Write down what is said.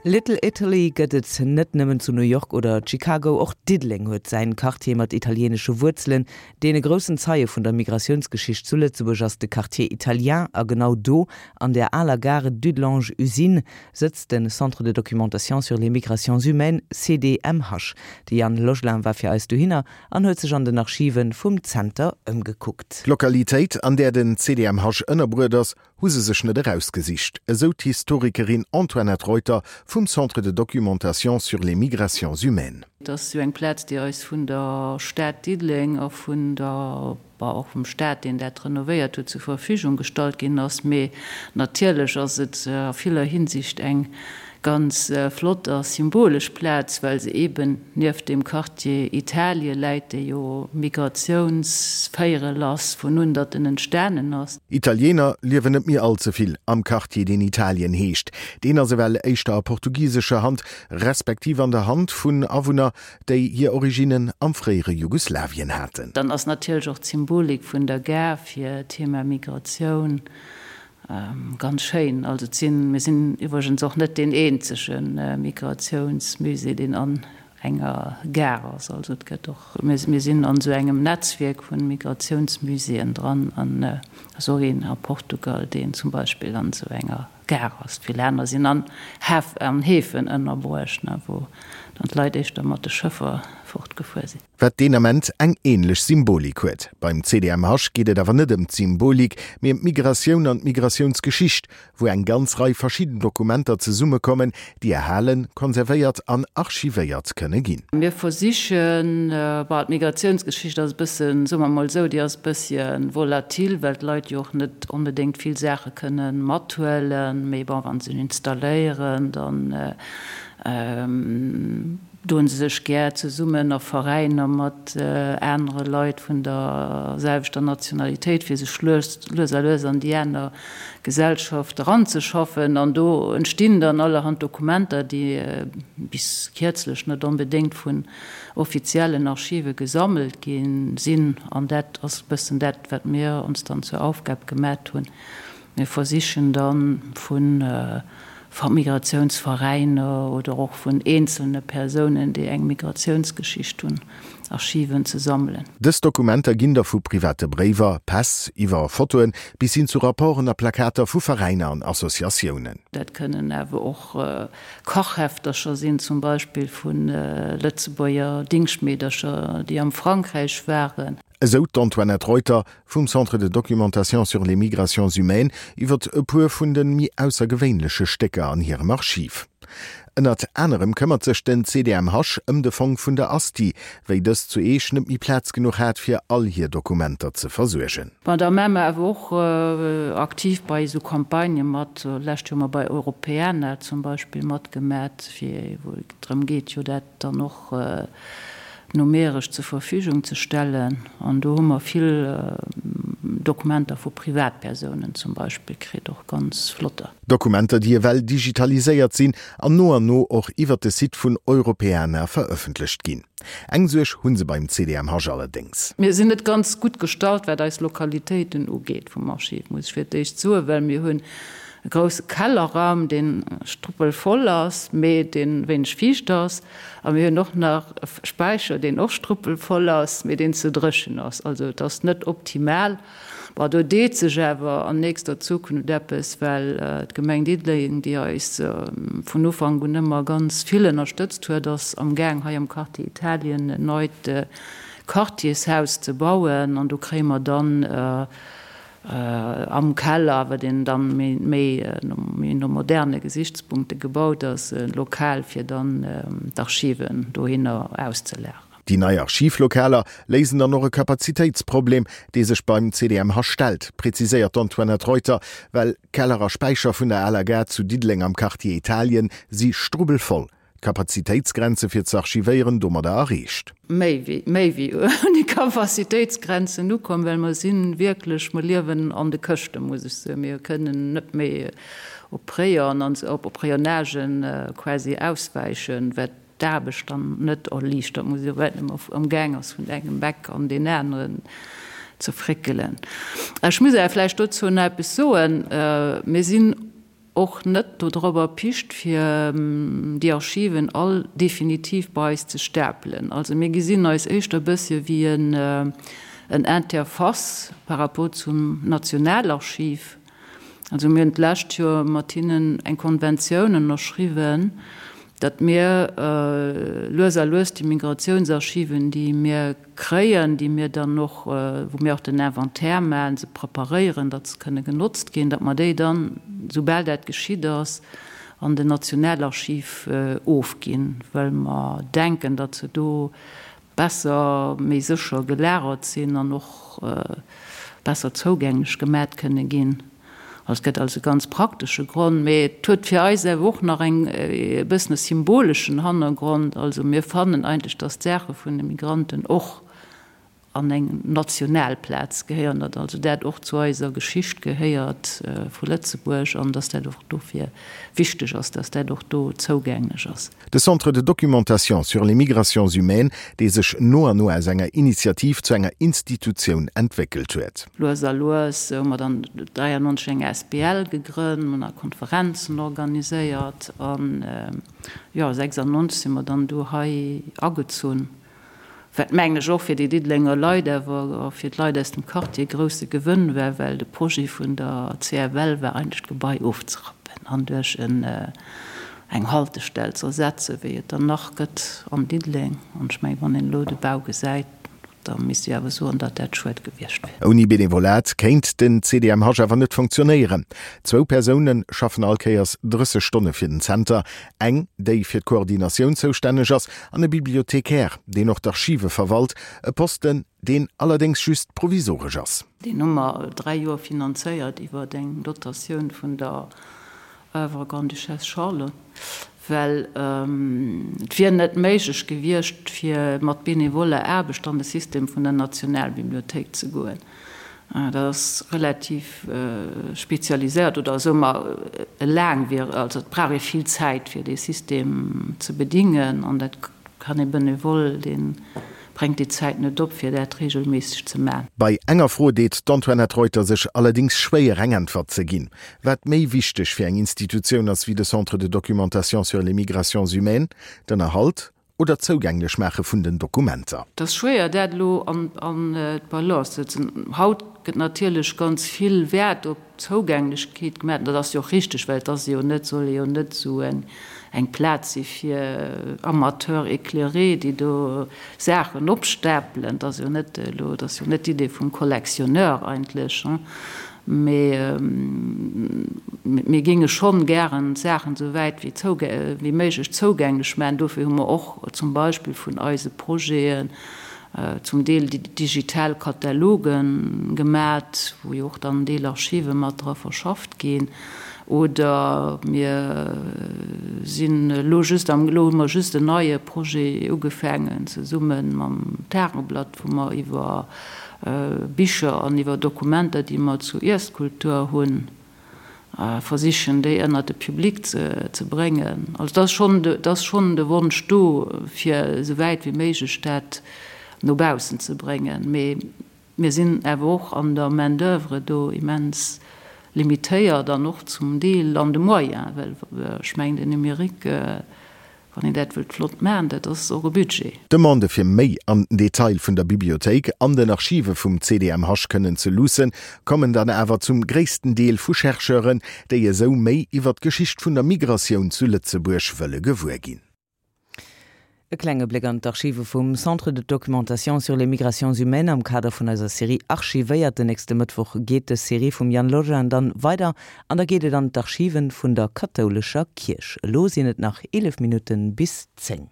Little Italy gëtt et net nëmmen zu New York oder Chicago, och Diddeleng huet säin Quartier mat italieenesche Wuerzelen. Deen e groussen Zeie vun der Migratiounsgeschicht zu Lëtzebuerg ass de Quartier Italien a genau do, an der aler Gare Dudelange Usine, sëtzt de Centre de documentation sur les migrations humaines, CDMH. De Yann Logelin war fir eis dohinner an huet sech an den Archive vum Zenter ëmgekuckt. D'Lokalitéit, an där den CDMH ënnerbruet ass, hu se sech net erausgesicht, esou d'Historikerin Antoinette Reuter vum Centre de documentation sur les migrations humaines. Et ass jo eng Plaz, déi eis vun der Stad Diddeleng a vun der, bon, och vum Staat, deen dat renovéiert huet, zur Verfügung gestallt ginn ass. Mee natierlech ass et a viller Hinsicht eng ganz flott a symbolesch Plaz, well se eeben nieft dem Quartier Italie läit, dee jo Migratiounsvéierel ass vun un datt en entstanen ass. Italiener liewen net méi all ze vill am Quartier, deen Italien heescht. Deen ass ewell éischter a portugisescher Hand, respektiv an der Hand vun Awunner, déi hir Originnen am fréiere Jugoslawien haten. Dann ass natierlech och d'Symbolik vun der Gare fir d'Thema Migratioun Ganz schéin. Also et sinn, mir sinn iwwregens och net deen eenzege Migratiounsmusée, deen an enger Gare ass. Also et gëtt och, mir sinn an esou engem Netzwierk vu Migratiounsmuséeën dran an et ass och een a Portugal, deen zum Beispill an esou enger Gare ass. Vill aner sinn an Häf, an Häfen ënnerbruecht, wou dann d'Leit éischter mat de Schëffer fortgefuer sinn. Wat deen Ament eng änlech Symbolik huet. Beim CDMH geet et awer net ëm d'Symbolik, mee ëm d'Migratioun an d'Migratiounsgeschicht, wou eng ganz Rei verschidden Dokumenter zesummekommen, déi erhalen, konservéiert an archivéiert kënne ginn. Mir versichen, bon, d'Migratiounsgeschicht ass e bëssen, soe mer emol esou, déi ass e bëssche volatil, well d'Leit jo och net onbedéngt vill Saache kënne mathuelen. Mee bon, wa se sech installéieren, dann Doen se sech gär zesummen a Veräiner mat anere Leit vun der selwechter Nationalitéit, fir sech lues a lues an déi aner Gesellschaft eranzeschaffen. An do entstinn dann allerhand Dokumenter, déi bis kierzlech net onbedéngt vun offiziellen Archive gesammelt gi sinn. An dat ass e bëssen dat, wat mir ons dann zur Aufgab gemat hunn. Mir versichen da vu Migratiounsveräiner oder och vun eenzelne Persounen, déi eng Migratiounsgeschicht hunn, Archiven ze sammelen. Dës Dokumenter ginn da vu private Bréiwer, Päss, iwwer Fotoen bis hin zu Rapporten a Plakater vu Veräiner an Associatiounen. Dat kënnen awer och Kachheftercher sinn, zum Beispill vu Lëtzebuerger Dingschtmeedercher, déi am Frankräich waren. Esou d'Antoinette Reuter vum Centre de documentation sur les migrations humaines iwwer e puer vun de méi aussergewéinleche Stécker an hirem Archiv. Ënnert anerem këmmert sech den CDMH ëm de Fong vun der Asti, wéi dës zu Eech net méi Plaz genuch hat fir all hir Dokumenter ze versuergen. Bon, da maache mer awer och aktiv bei esou Campagnë mat. Lescht Joer hu mer bei Europeana zum Beispill matgemat, fir wou et drëm geet, jo dat dann och numeresch zur Verfügung ze stellen. An do hu mer vill Dokumenter vu Privatpersounen zum Beispill kritt, och ganz flotter. Dokumenter, déi ewell digitaliséiert sinn an no an no och iwwert de Site vun Europeana verëffentlecht ginn. Eng Suerg hu se beim CDMH allerdéngs. Mir sinn net ganz gutt gestallt, wat eis Lokalitéiten ugeet vum Archiv, muss ech fir d'éischt soen, well mir hunn e grousse Kellerraum, dee struppelvoll ass, mee dee wéineg fiicht ass. A mir hunn och nach e Späicher, deen och struppelvoll ass, mee deen ze dréchen ass. Also et ass net optimal. Bon, do deet sech awer an nächster Zukunft eppes, well d'Gemeng Diddeleng, déi eis vun Ufank un ëmmer ganz vill ënnerstëtzt huet, ass amgaang hei am Quartier Italien en neit Quartiershaus ze bauen. An do kréie mer dann Am Keller, wat een dann méi no moderne Gesichtspunkte gebaut ass, e Lokal fir dann d'Archiven dohinner auszelageren. Déi nei Archivlokaler léisen dann och e Kapazitéitsproblem, dee sech beim CDMH stellt, präziséiert d'Antoinette Reuter, well Keller a Späicher vun der aler Gare zu Diddeleng am Quartier Italien si strubbelvoll. D'Kapazitéitsgrenze fir ze archivéieren domadder erreecht. Méi wéi, méi wéi un déi Kapazitéitsgrenzen ukomm, well mer si wierklech, mer liewen an de Këschten, muss ech soen. Mir kënnen net méi op Rayon an op Rayonnagen quasi auswäichen, wat d'Aarbecht dann net erliichtert, muss ech soen, well et ëmmer amgaang ass vun engem Eck an deen aneren ze fréckelen. Ech muss awer vläicht dozou nach eppes soen. Mir sinn. och net dodrop erpicht, fir déi Archiven all definitiv bei eis ze stapelen. Also mir gesinn eis éischter e bëssche wéi en Interface par rapport zum Nationalarchiv. Also mir hunn d'lescht Joer mat hinnen eng Konventioun ënnerschriwwen, datt mir lues a lues déi Migratiounsarchiven, déi mir kréien, déi mir dann och, wou mir och den Inventaire maachen, se preparéieren, datt se kënne genotzt ginn, datt mer déi dann, soubal dat geschitt ass, an den Nationalarchiv ofginn, well mer denken, datt se do besser, méi sécher gelagert sinn an och besser zougänglech gemat kënne ginn. Also et gëtt also e ganz praktesche Grond, mee et huet fir eis awer och nach eng e bëssen e symboleschen Hannergrond. Also mir fannen eigentlech, datt d'Saache vun de Migranten och an eng national Plaz gehéieren, datt also dat och zu eiser Geschicht gehéiert vu Lëtzebuerg an datt dat och dofir wichteg ass, datt dat och do zougänglech ass. De Centre de documentation sur les migrations humaines, dee sech no an no aus enger Initiativ zu enger Institutioun entwéckelt huet. Lues a lues hu mer dann 93 eng asbl gegrënnt, mer hunn nach Konferenzen organiséiert an, jo, 96 si mer dann do hei agezunn. Wat mengen ech och fir déi Diddelenger Leit, awer och fir d'Leit aus dem Quartier e grousse Gewënn war, well de Projet vun der CFL war eigentlech d'Gebai ofzerappen an duerch eng Haltestell ze ersetzen, wéi et der nach gëtt an Diddeleng. An ech mengen, wann een elo de Bau gesäit, da misst ee awer soen, datt dat schued gewiescht wier. Ouni Benevolat kéint den CDMH awer net funktionéieren. Zwou Persoune schaffen all Kéiers 30 Stonne fir den Zenter, eng, déi fir d'Koordinatioun zoustänneg ass, an e Bibliothecaire, deen och d'Archive verwalt, e Posten, deen allerdéngs just provisoresch ass. Deen hu mer 3 Joer finanzéiert iwwer eng Dotatioun vun der Oeuvre Grande-Duchesse Charlotte, well et wier net méiglech gewiescht, fir mat benevoller Aarbecht an de System vun der Nationalbibliothéik ze goen. Dat ass relativ spezialiséiert oder soe mer e laangwiereg, also et brauch ee vill Zäit fir dee System ze bedingen an dat kann ee Benevole, dee bréngt déi Zäit net op fir dat regelméisseg ze man. Bei enger Fro deet d'Antoinette Reuter sech allerdéngs schwéier eng Äntwert ze ginn, wat méi wichteg fir eng Institutioun ass wéi de Centre de documentation sur les migrations humaines, d'Ënnerhalt oder d'Zougänglech maache vun den Dokumenter. Et ass schwéier dat elo an d'Balance ze setzen. Haut gëtt natierlech ganz vill Wäert op d'Zougänglechkeet gemaach. Dat ass jo och richteg, well et ass jo net, soll jo net esou eng Plaz si fir Amateurs éclairés, déi do Saachen opstapelen. Dat ass jo net elo, dat ass jo net d'Idee vum Collectionneur eigentlech. Mee mir géinge schonn gären d'Saachen esou wäit wéi méiglech zougänglech maachen. Dofir hu mer och zum Beispill vun eise Projeten zum Deel digital Kataloge gemat, wou jo och dann en Deel Archive mat dra verschafft ginn. Oder mir sinn elo just am, elo hu mer just en neie Projet ugefaangen zesumme mam Tageblatt, wou mer iwwer Bicher an iwwer Dokumenter, déi mer zu Iesskultur hunn, versichen, déi ënnert de Public ze bréngen. Also et ass schonn, et ass schonn de Wonsch do, fir esou wäit wéi méiglech dat no baussen ze bréngen. Mee mir sinn awer och an der Main d'oeuvre do immens limitéiert an och zum Deel an de Moyens, well ech mengen, den Numérique, Wann een dat wëllt flott maachen, dat ass och e Budget. D'Demande fir méi an den Detail vun der Bibliothéik an den Archive vum CDMH kënnen ze luussen, kommen dann awer zum gréissten Deel vu Chercheuren, déi esou méi iwwer d'Geschicht vun der Migratioun zu Lëtzebuerg wëlle gewuer ginn. E klenge Bléck an d'Archive vum Centre de documentation sur les migrations humaines am Kader vun eiser Serie Archivéiert. Den nächste Mëttwoch geet dës Serie vum Yann Logein dann weider An da geet et an d'Archiven vun der kathoulescher Kierch. Elo sinn et nach 11 Minutten bis 10.